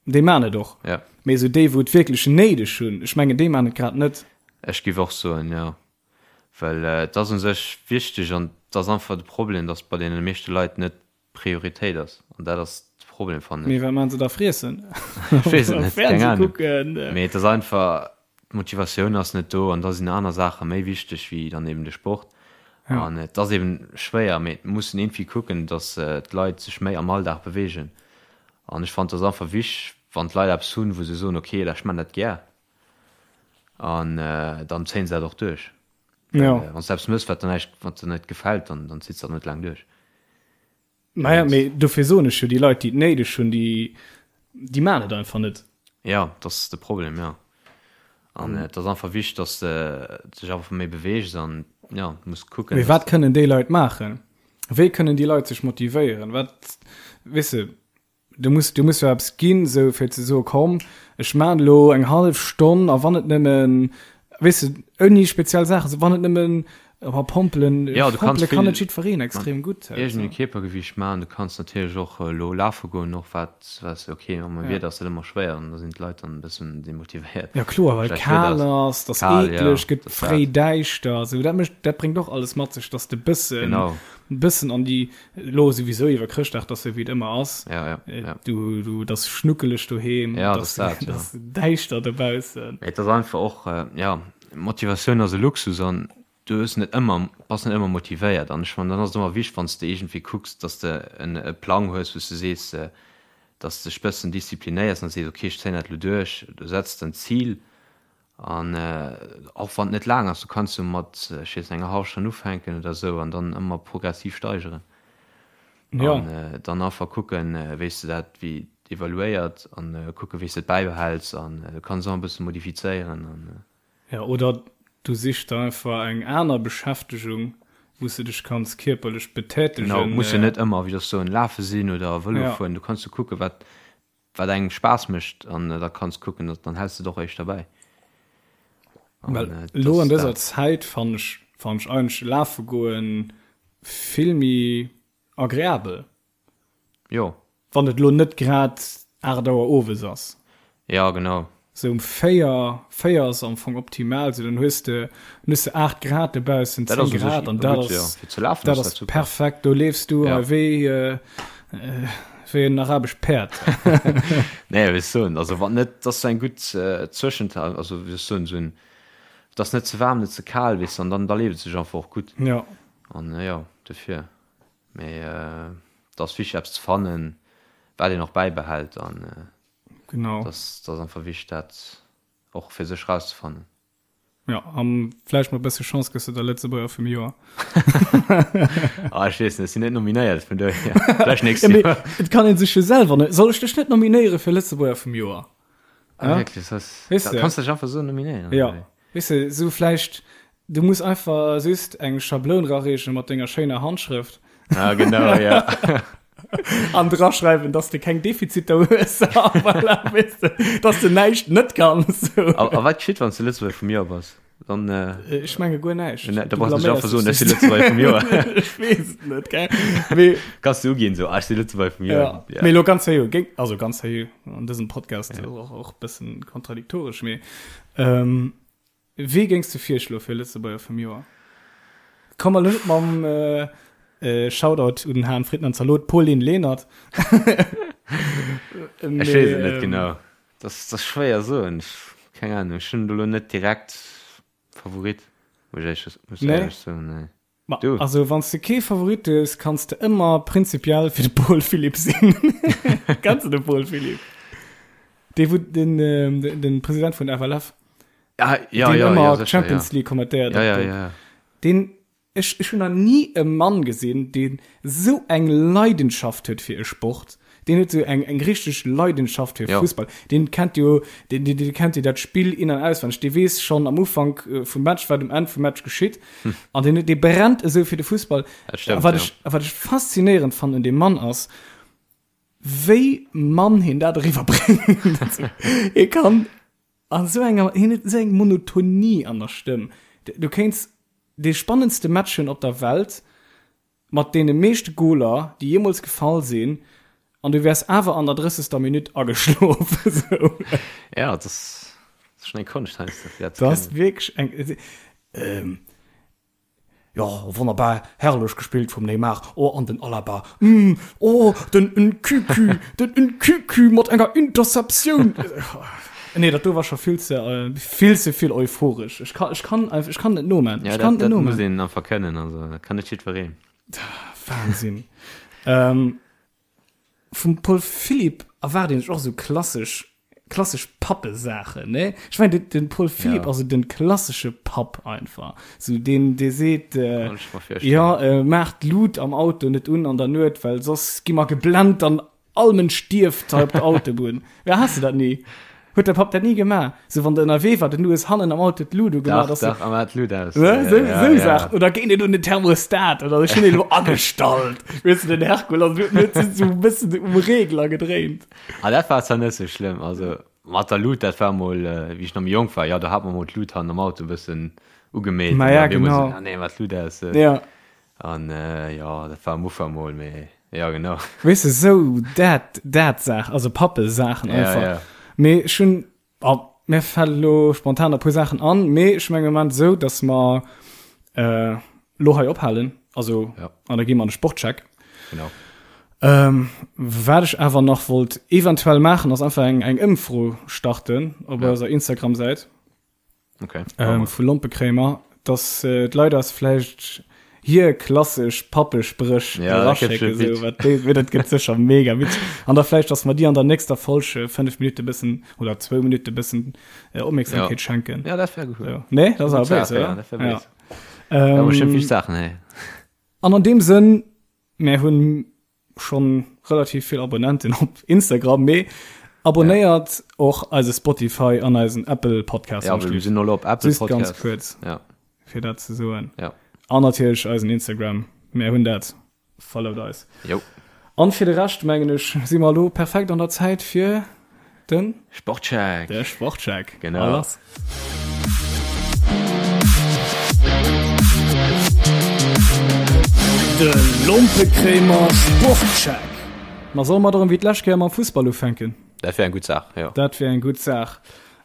déi maan et och. Ja. Mee esou déi wou et wierklech néideg hunn, ech mengen déi maan et grad net. Ech géif och soen, jo. Well et ass u sech wichteg an et ass einfach de Problem, datt bei deene meeschte Leit net d'Prioritéit ass. An dat ass de Problem, fannen Mee ech. wat maan se da? Friessen? Ech weess et net, keng Fernseh Ahnung. kucken? Mee et ass einfach, d'Motivatioun ass net do an da sinn aner Saache méi wichteg wéi dann eben de Sport. Ja. An et ass eben schwéier, mee et muss een iergendwéi kucken, datt d'Leit sech méi am Alldag beweegen. An ech fannen, et ass einfach wichteg, wann d'Leit eppes hunn, wou se soen, okay, ech man dat gär, an dann zéien se dat och duerch. Ja. Wann s de eppes mëss, wat der näischt, wat der net gefält, dann, dann zitts de dat net laang duerch. Naja, mee dofir soen ech jo, déi Leit, déi et néideg hunn, déi, déi maachen et einfach net. Ja, dat ass de Problem, jo. An et ass einfach wichteg, dass de dech einfach méi beweegs an, ja, du muss kucken, Mee dass wat kënnen déi Leit maachen? Wéi kënnen déi Leit sech motivéieren? Wat, weess de, du muss, du muss jo eppes ginn, esou fir ze soen, komm, ech maachen elo eng hallef Stonn a wann et nëmmen, weess de, ouni speziell Saachen, wann et nëmmen. Awer Pompelen, Ja, du kanns Pompele kann vill net jiddwereen extrem gutt. mat iergendengem Kierpergewiicht maachen. Du kanns natierlech och elo lafe goen, och wat, wat, okay, mam Ja. Wieder ass dat ëmmer schwéier an da sinn d'Leit dann e bëssen demotivéiert. Ja kloer, well Schlecht Wieder kal ass ass, 't ass kal, ja, eekleg, gëtt dat ass dat. fréi däischter, sou dat mécht, dat bréngt och alles mat sech, dass de bëssen, Genau. bëssen an déi, elo souwisou iwwer Chrëschtdag, 't ass sou wéi et ëmmer ass, Ja, ja, ja. du, du, 't ass schnuckeleg doheem, Ja, 't dat ass, ass dat, 't ja. ass däischter dobaussen. Mee et ass einfach och, ja, Motivatioun ass e Luxus an du hues net ëmmer, bass net ëmmer motivéiert an ech fannen dann ass et ëmmer wichteg wann s de iergendwéi kucks, dass de en e Plang hues wou s de sees, dass de dech bëssen disziplinéiers an sees ok ech zéien dat elo duerch, du setz de en Zil an och wann et net laang ass, du kanns jo mat ech weess net enger hallwer Stonn ufänken oder esou an dann ëmmer progressiv steigeren an dann einfach kucken wéi s de dat wéi evaluéiert an kucken wéi s de et bäibehäls an du kanns och e bësse modifizéieren an. Ja, oder du sichs der einfach eng aner Beschäftegung, wou s de dech kanns kierperlech betätegen. Genau, muss jo net ëmmer, wéi soll ech soen, lafe sinn oder Vëlo fueren. Du kanns jo kucken, wat, wat engem Spaass mécht an da kanns kucken, dann häls de et och éischter bäi. Well elo an dëser Zäit fannen ech, fannen ech eigentlech lafe goen vill méi agreabel. Jo. Wann et elo net grad 8 Auer owes ass. Ja, genau. Sou um 4, 4 ass am Fong optimal, sou dann hues de, dann hues de 8 Grad dobaussen, 10 Grad an dat ass, dat ass perfekt. Do leefs du hei wéi, wéi en arabescht Päerd. Nee, wéi ech soen, also wann net, dat ass sou eng gutt Zwëschental, also wéi ech soen, sou en, et ass net ze waarm, net ze kal, weess de, an dann, da leeft et sech einfach och gutt. Jo. An jo, dofir. Mee et ass wichteg eppes ze fannen, wat een och bäibehält an genau. Et ass einfach wichteg dat och fir sech rauszefannen. Jo, a vläicht mat e bësse Chance gëss de da Lëtzebuerger vum Joer. Ah, ech weess net, ech sinn net nominéiert, vun dohier vläicht nächst Joer. Et kann ee sech jo selwer, soll ech dech net nominéiere fir Lëtzebuerger vum Joer? Ah, wierklech? Weess de? Kanns dech einfach esou nominéieren? Jo. Weess de, sou vläicht, du muss einfach just eng Schabloun rareechen mat denger schéiner Handschrëft. Ah, genau, ja. An draschreiwen, dass de keng Defiziter hues, a voilà, weess de, dass de näischt net kanns. A, a wat geschitt, wann s de Lëtzebuerger vum Joer bass? Dann, äh, Ech menge guer näischt. Ne, da brauchst du nicht einfach soen, ech si Lëtzebuerger vum Joer. Ech weess et net, gell? Mee, Kanns du uginn, sou, ah, ech si Lëtzebuerger vum Joer. Ja. Ja. Mee lo ganz seriö, géing, also ganz seriö, an dësem Podcast ja. och, och bëssen kontradiktoresch, mee Ähm, wee géings de virschloe fir Lëtzebuerger vum Joer? Komm elo net mam äh, äh, Shoutout un den Hahn Fritten an Zalot, Pauline Lenert. Ech weess et net genau. Dat ass schwéier soen. Keng Ahnung, ech hunn do elo net direkt Favorit, muss ech éierlech soen. Nee. Ma, du. Also wann s de kee Favorit hues, kanns de ëmmer prinzipiell fir de Paul Philipp sinn. Kenns de de Paul Philipp? Dee wou den, ähm, den President vun FLF. Ah, ja, deen ja, ëmmer ja, sicher, Champions ja. League kommentéiert. Ja, ja, ja. Deen, ech, ech hunn nach ni e Mann gesinn, deen sou eng Leidenschaft huet fir e Sport. Deen huet sou eng eng richteg Leidenschaft fir Fussball. Deen kennt jo deen deen kennt jo dat Spill in an auswenneg. Dee weess schonn am Ufank vum Match wat um Enn vum Match geschitt. An deen dee brennt esou fir de Fussball. Dat stëmmt, A wat ja. ech a wat ech faszinéierend fannen un deem Mann ass, wéi mann hien dat eriwwer bréngt. Hie kann an esou enger hien huet esou eng Monotonie an der Stëmm. Du kéints dee spannendste Match hunn op der Welt, Mat deene meeschte Goler, déi jeemools gefall sinn, an du wäers awer an der drëssegster Minutt ageschlof. Esou. Ja, dat ass schonn eng Konscht heiansdo, fir dat ze Dat ass kënnen. wierklech eng. Ähm, jo, wonnerbar, herrlech gespillt vum Neymar. Oh, an den Alaba, mm, oh, den Nkunku, den Nkunku mat enger Interceptioun. Nee, dat do war scho vill ze, vill ze vill euphoresch. Ech kann, ech kann einfach, ech kann net noman. Ja, Ech kann dat, net dat muss noman. een einfach kënnen, also dat kann net jiddwereen. Wahnsinn. ähm, vum Paul Philipp erwaart een sech och sou klassesch, klassesch Pappesaachen, ne? Ech mengen, den, den Paul Philipp Ja. ass sou den klassesche Papp einfach. Sou deen, dee seet, äh, Kann ech mer virstellen. ja, äh, maach d'Lut am Auto net un an der Nuet, well soss gi mer geblennt an All Mënsch stierft hei op der Autobunn. Ja, has de dat ni? Huet däi Papp dat ni gemaach? Sou wann de ënnerwee war, den du hues hannen am Auto d'Lut ugemaach, Dach, dass du. dach, a mat d'Lut aus. Ne? Ja, Sou, ja, sou ja. Saachen. Oder géi net un den Thermostat oder ech hunn en elo agestallt. Weess de, den Herkull ass huet sech sou e bëssen um Regler gedréint. Ah, dat war zwar net sou schlëmm. Also mat der Lut, dat war mol, wéi ech nach méi jonk war, jo, do hat mer mol d'Lut hannen am Auto e bëssen. Ugemeet. Ma ja, genau. So, ah, nee, wat Luut aus. Ja. An jo, dat war am Ufank mol, mee jo, genau. Weess de, sou dat, dat Saach, also Pappe-Saachen einfach. Ja, ja. Mee ech hunn, oh, mir fält elo spontan e puer Saachen an, mee ech mengen am Moment sou, dass mer elo hei ophalen, also, ja. an da gi mer an de Sportcheck. Genau. Ähm, wat ech awer nach wollt eventuell maachen, ass einfach eng, eng Ëmfro starten op ja. eiser Instagram-Säit. Okay. Ähm, vu Lompekréimer, dass äh, d'Leit eis vläicht hir klassesch Pappespréch ja, eraschécken, so, wat déi, wéi dat gëtt sécher mega witzeg. An da vläicht, dass mer déi an der nächster Folg äh, 5 Minute bëssen oder 2 Minute bëssen äh, Opmierksamkeet ja. schenken. Ja, dat wär gut. So. Nee, dat ass awer Saach, béis, ja, oder? dat wär Ja. béis. Da Ähm, bestimmt vill Saachen, hey. an an deem Sënn, mir hunn schon relativ vill Abonnenten op Instagram, mee abonnéiert och eise Spotify an eisen Apple Podcast. Ja, wir sinn elo op Apple Just Podcast. ganz kuerz, Ja. fir dat ze soen. Ja. An natierlech eisen Instagram. Mir hunn dat. Followt eis. Jo. An fir de Rescht, mengen ech, si mer elo perfekt an der Zäit fir Den? Sportcheck. De Sportcheck. Genau. A lass. De Lompekréimer Sportcheck. Ma solle mer erëm wéi d'lescht Kéier mam Fussball ufänken? Dat wär eng gutt Saach, jo. Dat wär eng gutt Saach.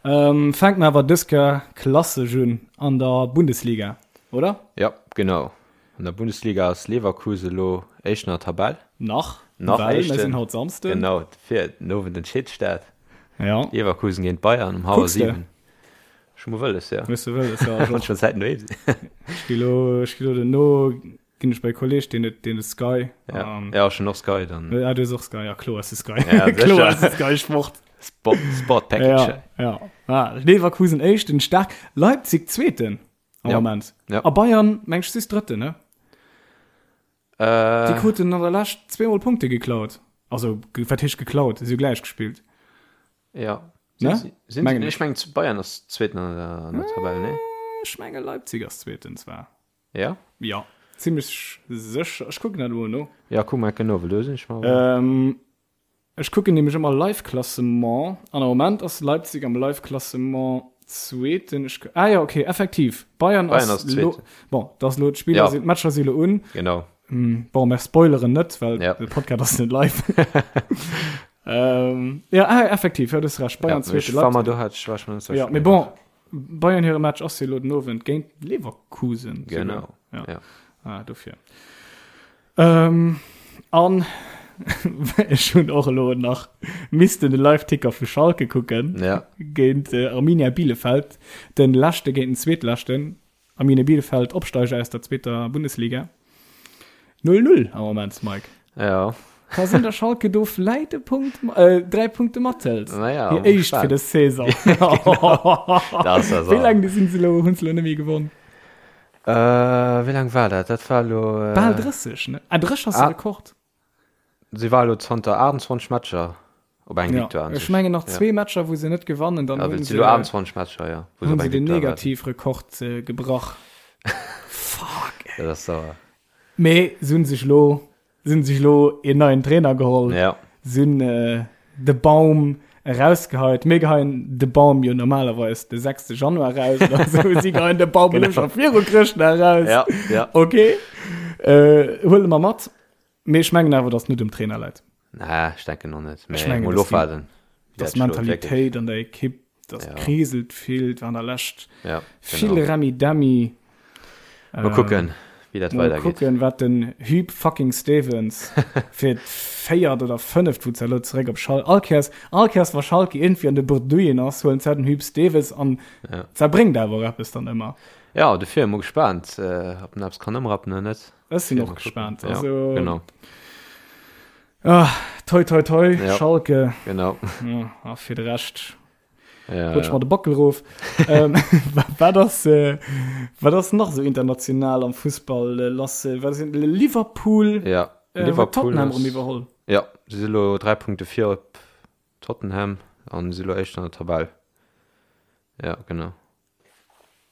Ähm, fänke mer awer dës Kéier klassesch un an der Bundesliga, oder? Jo, genau. An der Bundesliga ass Leverkusen elo Éischten an der Tabell. Nach, Nach well mir Éischten. sinn haut Samsden. Genau, fir den Owend entscheet sech dat. Ja. Leverkusen géint Bayern um hallwer Kucks de? 7. Ech hu mol wëlles, ja. Hues de wëlles, ja. Ech Wann och. schon Zäiten doheem sinn. Ech gi lo, ech gi lo duerno ginn ech bei e Kolleg, deen huet, deen huet Sky. Ja, Um, ja, ech hunn och Sky dann. Ah, du hues och Sky, ja, kloer hues du Sky. Ja, Kloer sécher. hues du Sky Sport. Sport, Sport Package. Ja, ja. Ah, Leverkusen Éischten, staark. Leipzig Zweeten. Am Ja. Moment. Ja. A Bayern, meng ech, si Drëtten, ne? Äh, Déi kruten an der Lescht zweemol Punkte geklaut. Also, ge- wat heescht geklaut? Si hu gläich gespillt. ja. Ne? Sinn, sinn, Mengen ech mengen, Bayern ass Zweeten an der, an der Tabell, ne? Ech menge Leipzig ass Zweeten zwar. Ja? Ja, zimmlech sécher. Ech kucken dat elo no. Ja, kuck mal genau, well do sinn ech mer. Ähm, Ech kucken nämlech ëmmer Live-Klassement an am Moment ass Leipzig am Live-Klassement Zweeten. Ech, ah jo, okay, effektiv. Bayern Bayern ass ass Zweeten. lo, bon, dat ass lo, d'Spiller Ja. sinn, d'Matcher si lo un. Genau. Bon, mer spoileren net, well Ja. de Podcast ass net live. ähm, ja, ah, effektiv, ja, du hues recht. Bayern Ja, Zweete, ech war mer Leipzig. do hat ech war ech mer net Ja, sécher. mee bon, Bayern hire Match ass jo lo den Owend géint Leverkusen. souguer. Genau. Ja. Ja. Ah, dofir. Ähm, an ech hunn och elo nach missten de Live-Ticker vu Schalke kucken. Ja. Géint äh, Arminia Bielefeld, den leschte géint den zweetleschten. Arminia Bielefeld Opsteiger aus der zweeter Bundesliga. 0-0 am Moment, Mike. Ja. Ka sinn, dass Schalke do vläit e Punkt, äh, 3 Punkte mathëlt. Naja, Hir éischt fir dës Saison. Das ass Wéi laang sinn se elo, hunn se elo net méi gewonn? Äh, wéi laang war dat? Dat war elo. Äh, Bal 30, ne? Ah, 30 ass de Ah. Rekord. Si war elo zanter 28 Matcher op eng Ja. Victoire. an Ech sech. mengen nach Ja. zwee Matcher, wou se net gewannen, dann Ja, hunn si se, elo 28 Matcher, ja. Wou se hunn op se eng den Victoire warten. Negativrekord äh, gebrach. Fuck, ey. Dat ass sauer. Mee se hunn sech elo Se hunn sech elo een neien Trainer geholl. Ja. Se hunn äh, de Baum erausgeheit. Mir geheien de Baum jo normalerweis de 6. Januar raus oder so. Si geheien de Baum elo scho viru Chrëschtdag raus. Ja, ja. Okay. Äh, huele mer mat. Mee ech mengen awer, dass net um Trainer läit. Nee, ech denken och net. Ech Mee mengen, mol dass die- ofwaarden. wéi Dass dat schloet, wierklech. Mentalitéit an der Ekipp, dass Ja. kriselt vill, war an der Lescht Ja, vill genau. Remi-Demi. Mal kucken, wéi dat Mal weidergeet. kucken, wat den Huub fucking Stevens fir d'véiert oder fënneft, wou ze elo zeréck op Schal all Kéiers, all Kéiers wa Schalke iergendwéi an de Bredouillen ass, huelen se den Huub Stevens an Ja. se bréngt awer och eppes dann ëmmer. Ja, dofir mol gespaant, äh, ob en eppes kann ëmrappen oder net. Ech sinn Mal och kucken. gespaant. Ja, Also, genau, ah, toi toi toi, Ja. Schalke. genau. Ja, a fir de Rescht Ja, rutsch ja. mer de Bockel rof. ähm, wat ass äh, wat ass nach so international am Fussball äh, lass? Äh, wat sinn Liverpool, Ja, äh, huet Liverpool Tottenham ass- erëm iwwerholl. Ja, si si lo 3 Punkte vir op Tottenham an si lo éischt an der Tabell. Ja, genau.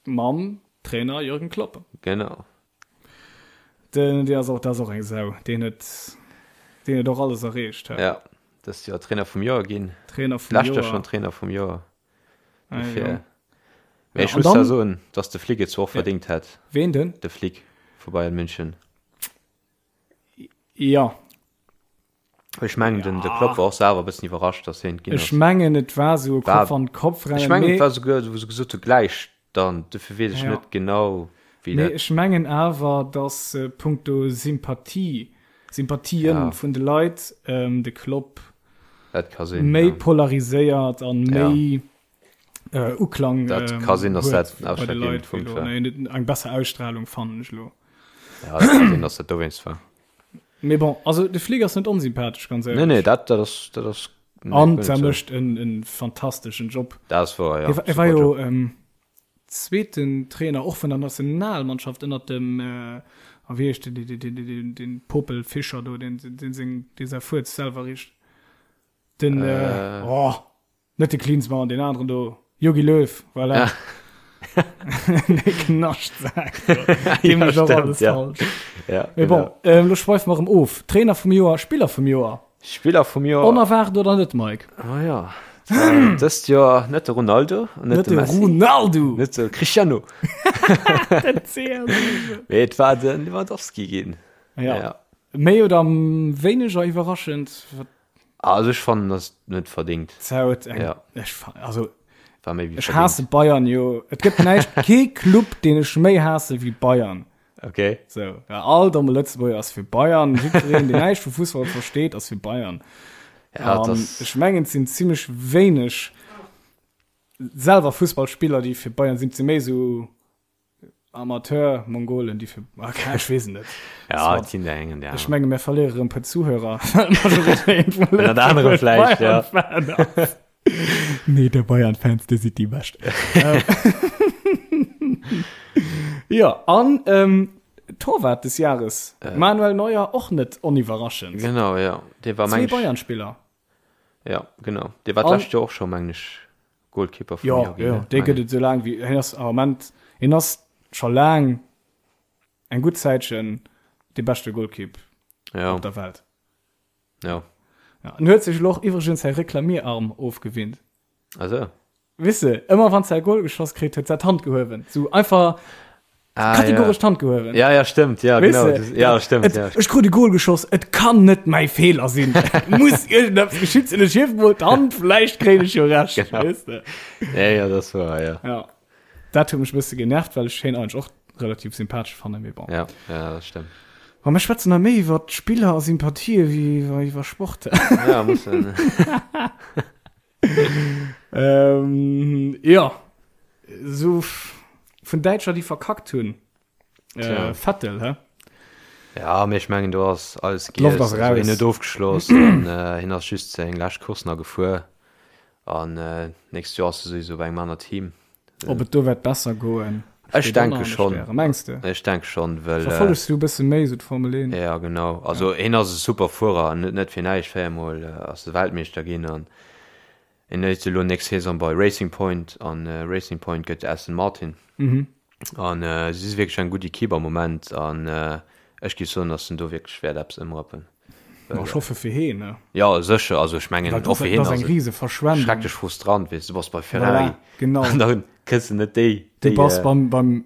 Mam Trainer Jürgen Klopp. Genau. Den, dee ass och, dat ass och eng Sau. Deen huet, deen huet och alles erreecht. Hä? Ja, dëst Joer Trainer vum Joer ginn. Trainer vum Lescht Joer Joer. schon Trainer vum Joer. Ah, Dofir ja. Mee ech muss zwar soen, dass de Flick et zwar och verdéngt hätt. Ween denn? De Flick vu Bayern München. Jo. Ech mengen den de Klopp war och selwer e bëssen iwwerrascht, dass hien et ginn ass. Ech mengen et war esou e Kopf an Kopf Rennen. Ech mengen et war esouguer, wou se gesot hu gläich dann, dofir weess ech net genau wéi dat. Mee ech mengen awer, dass punkto Sympathie, Sympathien vun de Leit de Klopp méi polariséiert an méi Uklang dat ka sinn, dass dat den ausschlaggebende Punkt war. Eng besser Ausstrahlung fannen ech elo. Ja, dat ka sinn, dass dat dowéinst war. Mee bon, also de Flick ass net onsympathesch, ganz éierlech. Nee, nee, dat, dat ass, dat ass. An der mécht en, en fantasteschen Job. Dat ass wouer, ja. E war jo ähm, zweeten Trainer och vun der Nationalmannschaft ënnert dem, äh, a wéi heescht den, den, den, den, den Popel Fischer do, den, den seng, dee säi Fuerz selwer richt. Den, äh, oh. Net de Klinsmann, deen aneren do, Jogi Löw, voilà. De Knaschtsak. Dee mécht och alles falsch. Ja, Mee bon, ähm, lo schweife mer erëm of. Trainer vum Joer, Spiller vum Joer. Spiller vum Joer. Onerwaart oder net, Mike? Oh ja. Dëst Joer net de Ronaldo an net de Messi. Ronaldo! Net de Cristiano. Den CR7. Mee et war de Lewandowski ginn. Ja. ja. Méi oder wéineger iwwerraschend? Also ech fannen dass net verdingt. Zou eng ja. Ech, also war méi wéi ech haasse Bayern jo. Et gëtt näischt kee Club deen ech méi haasse wéi Bayern. Okay. So, ja, all domme Lëtzebuerger ass fir Bayern, jiddwereen deen näischt vu Fussball versteet ass fir Bayern. Ja, um, das... Ech mengen et sinn zimmlech wéineg selwer Fussballspiller déi fir Bayern sinn, et si méi sou Amateur Mongolen déi fir ah, ech weess et net. Ja, et sinn der eng an der Ech menge mir verléiere rëm puer Zuhörer. Ënnert anerem vläicht, ja. Nee, der Bayern-Fans, dir sidd déi Bescht. Jo, an ähm, Torwart des Jahres, äh. Manuel Neuer och net oniwwerraschend. Genau, ja. Dee war meng. Zwee Bayern-Spiller. Ja, genau. Dee war d'lescht Joer och scho, mengen ech, Goalkeeper vum Joer ginn. Jo, jo, dee gëtt et esou laang wéi hien ass am Ament, hien ass scho laang eng gutt Zäitchen dee beschte Goalkeep op der Welt. Jo. Ja, en huet sech elo och iwwregens säi Reklamierarm ofgewinnt. Ah sou. Weess de, ëmmer wann se e Goal geschoss kritt, huet se d'Hand gehuewen. Sou einfach ah, kategoresch ja. d'Hand gehuewen. Ja, ja, stimmt, ja, Weess genau. de? Ja, stimmt, Et, ja. Ech krut e Goal geschoss, et kann net mäi Feeler sinn. Et muss iergendeppes geschitt sinn, ech hiewen mol d'Hand, vläicht kréien ech jo Recht. Genau. Weess de? Ja, ja, das war, ja. Ja. Dat huet mech e bësse genervt, well ech hien eigentlech och relativ sympathesch fannen, mee bon. Ja, ja, dat stimmt. Ma mir schwätzen hei méi iwwer Spiller a Sympathië wéi iwwer Sport. Ja, muss. Ähm, ja so vun Däitscher déi verkackt hunn äh, Vettel hä? Ja mee ech mengen do ass alles D'Loft ass giess. raus. Hien huet ofgeschloss an äh, hien ass just seng lescht Course nach gefuer an äh, nächst Joer ass e souwisou bei engem aner Team. Ob et do wäert besser goen? Ech steet och nach denke an de schonn. Stären. Mengs de? Ech denke schonn, well äh, Verfollegs du e bësse méi sou d'Formel 1? Ja genau, also hien ass e super Fuerer an net net fir näischt, véiermol ass e Weltmeeschter ginn an hien ass elo nächst Saison bei Racing Point an Racing Point gëtt Aston Martin an si si wierklech eng gutt Equipe am Moment an ech géif soen, datt en do wierklech wäert eppes ëmrappen. Ma ech hoffe fir heen, ne? Jo sécher, also ech mengen Well och fir heen dat ass ass eng et rise Verschwendung. schrecklech frustrant, weess du bass bei Ferrari Voilà, genau. an da kriss de net déi Du déi bass beim beim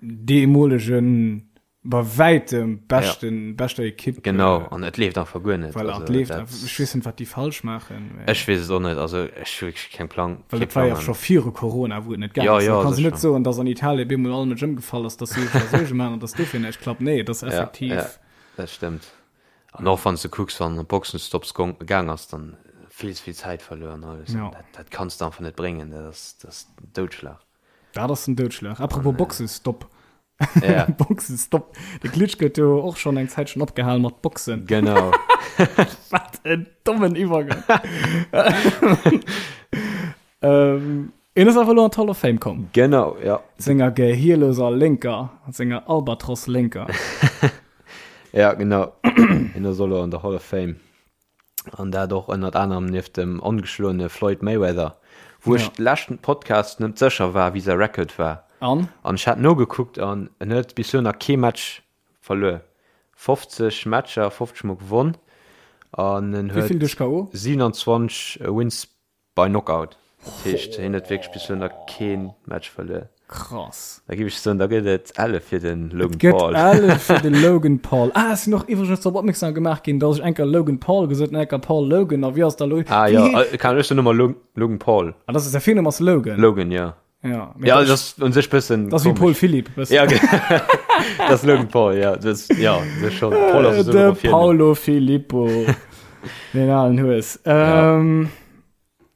deemolegen bei wäitem beschten beschter Ekipp. Genau, an et leeft einfach guer net. Voilà, et leeft einfach. Ech weess net, wat déi falsch maachen. Mä Ech weess et och net. Also ech hu wierklech keng Plang. Well et war jo scho viru Corona, wou et net gaang Ja, ass. ja, Da kanns du sécher. net soen, datt an Italien bemol all Mënsch ëmgefall ass, datt si sech Suerge maachen an datt dofir näischt klappt. Nee, et ass effektiv. Ja, ja, dat stëmmt. An och wann s de kucks, wann op Boxenstopps gong, gaang ass, dann vill ze vill Zäit verluer an alles. Ja. Dat, dat kanns de einfach net bréngen. Dat ass, dat ass den Doudschlag. Dat ass den Doudschlag. Apropos Boxestopp. Ja. Boxestopp. De Klitschko huet jo och schonn eng Zäitchen opgehal mat Boxen. Genau. Wat en dommen Iwwergang. ähm, en ass awer elo an d'Hall of Fame komm. Genau, ja. Senger gehierloser Lénker, senger Albatros-Lénker. Ja, genau. En ass elo an der Hall of Fame. An dat och ënnert anerem nieft dem ongeschloene Floyd Mayweather, wou ech Ja. leschten Podcast net sécher war, wéi säi Record war. An? An ech hat nogekuckt an en huet bis elo nach kee Match verluer. 50 Matcher, 50 mol gewonn an en Wéi vill huet duerch KO? 27 Wins by Knockout. Dat heescht, hien huet wierklech bis elo nach kee Match verluer. Krass. Da géif ech soen, da gëtt et Elle fir de Logan Et gëtt Paul. Elle fir de Logan Paul. Ah, ech sinn och iwwregens drop opmierksam gemaach ginn, dass ech eng Kéier Logan Paul gesot hunn, eng Kéier Paul Logan. A wéi ass da lo? Ah jo, kann ech soen ëmmer Logan Paul. Ah, dat ass säi Virnumm ass Logan. Logan, jo. Ja, ja das ist un sech bëssen das wie Paul Philipp ja, das Logan Paul ja das, ja das schon Paul ass de Paulo Filippo den alen Hues ähm,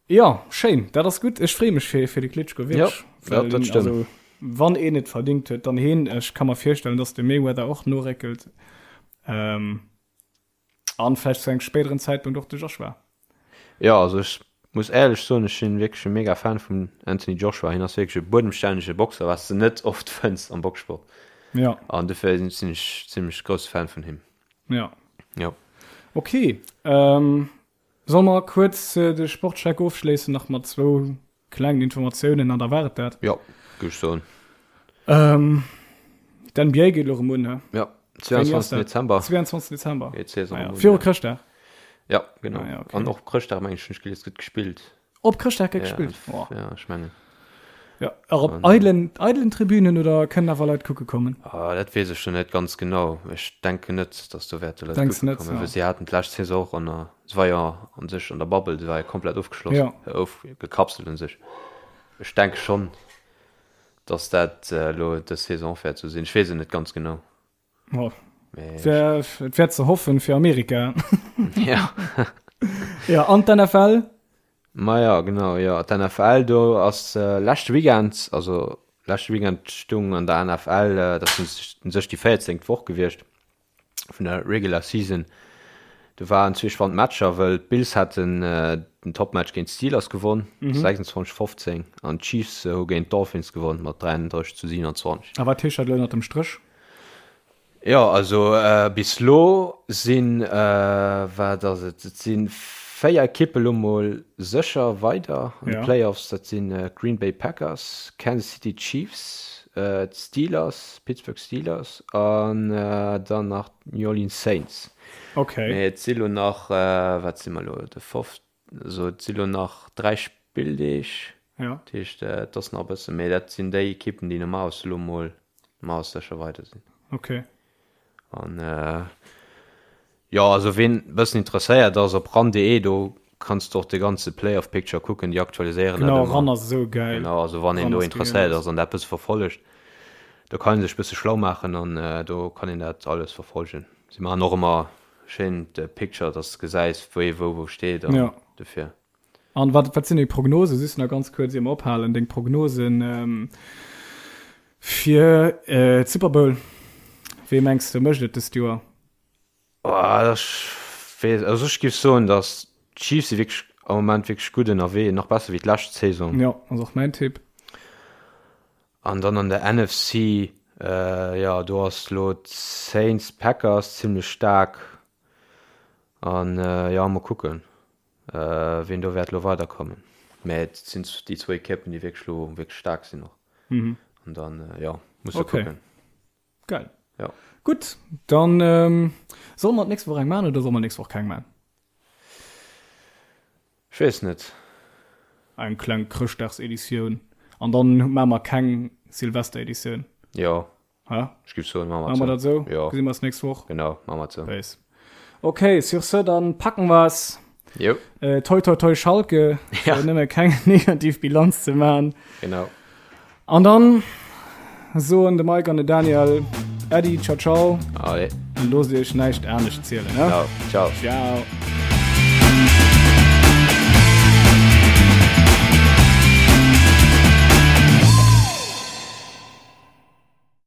ja. ja schéin dat ass gut ech free mech fir fir de Klitschko ja, ja, dat stimmt. Also, wann een et verdingt huet dann heen ech kann mer virstellen dass de Mayweather och noréckelt ähm, An vläicht zu engem spéideren Zäitpunkt och de Joshua. Jo, also ech muss éierlech soen, ech sinn wierklech e mega Fan vum Anthony Joshua. Hien ass wierklech e buedemstännege Boxer, wat s de net oft fënns am Boxsport. Ja. An dofir sinn ech zimmlech grousse Fan vun him. Ja. Jo. Ok, ähm, solle mer kuerz de Sportcheck ofschléissen nach mat zwou Klengen Informatiounen an da war et dat. Jo, géif ech soen. Ähm, D'NBA geet elo erëm un, he? Jo, 22. Dezember. 22. Dezember. Geet d'Saison erëm un. Viru Chrëschtdag? Jo, genau. Ah, ja, okay. An och op Chrëschtdag, meng ech, hunn ech gelies, gëtt gespillt. Op Chrëschtdag gëtt gespillt? Ja, ja, ech mengen. Ja, och op eidelen, eidelen Tribünen oder kënnen awer Leit kucke kommen? Ah, dat weess ech jo net ganz genau. Ech denken net, dass do wäerte Leit kucke kommen, well si haten d'lescht Saison och an der Se war jo an sech an der Bubble, se war jo komplett ofgeschloss, ja. ofgekapselt un sech. Ech denke schonn, dass dat elo dës Saison och wäert esou sinn. Ech weess et net ganz genau. Oh. Et wär ze hoffen fir Amerika. Ja. Ja, an d'NFL? Maja, genau, jo. D'NFL, do ass leschte Weekend, also leschte Weekend stung an der NFL, dat ass un sech déi véierzéngt Woch gewiescht, vun der Regular Season. Do waren zwee spannend Matcher, wëll d'Bills haten den Topmatch géint d'Steelers gewonn, 26, 15, an d'Chiefs hu géint d'Dolphins gewonn mat 33 zu 27. A wat heescht dat elo ënnert dem Stréch? Jo, also bis elo sinn, wat ass et, et si 4 Ekippe lo mol sécher weider an de Playoffs. Dat sinn d'Green Bay Packers, Kansas City Chiefs, d'Steelers, Pittsburgh Steelers an dann nach d'New Orleans Saints. Okay. Mee et si lo nach, wat si mer lo, de foft, also et si lo nach 3 Spilldeeg. Ja. Dat heescht, et ass nach e bëssen, mee dat sinn déi Ekippen, déi normalerweis elo mol normalerweis sécher weider sinn. Okay. An jo, also ween e bëssen interesséiert ass, op ran.de, do kanns de och de ganze Playoff Picture kucken, déi aktualiséieren dat Genau, ëmmer. Ran ass esou gäil. Genau, also wann een Ran do ass interesséiert genial. ass an dat bësse verfollegt, do kann ee sech bësse schlau maachen an do kann een dat alles verfollegen. Si maachen och ëmmer schéin de Picture, dass de gesäis, wéi wou wou steet an Ja. dofir. An wat, wat sinn deng Prognosen, just nach ganz kuerz ier mer ophalen, deng Prognosen fir d'Super Bowl? Wee mengs de mécht et dëst Joer? Oh, ech weess, also ech géif soen, datt d'Chiefs si wierklech am Moment wierklech gutt ënnerwee, nach besser wéi d'lescht Saison. Jo, ass och mäin Tipp. An dann an der NFC, jo, do ass elo d'Saints, Packers zimlech staark an jo, mol kucken. Wien do wäert elo weiderkommen. Mä et sinn déi zwou Ekippen, déi wierklech elo wierklech staark sinn och. An dann, jo, muss de Okay. kucken. Geil. Jo. Gutt, dann solle mer d'nächst Woch eng maachen oder solle mer d'nächst Woch keng maachen? Ech weess net. Eng kleng Chrëschtdagseditioun an dann maache mer keng Silvestereditioun. Jo, Hä? Ech giff soen, maache mer dat sou. Jo. Gesi mer eis nächst Woch. Genau, maache mer sou. Peace. Ok, sur ce, dann packen wir's. Jo. Äh, toi toi toi Schalke, Ja. fir nëmme keng negativ Bilanz ze maachen. Genau. An dann soen de Mike an de Daniel Äddi, ciao ciao. Allez. An loosst iech näischt anescht zielen, ne? Genau. Ciao. Ciao.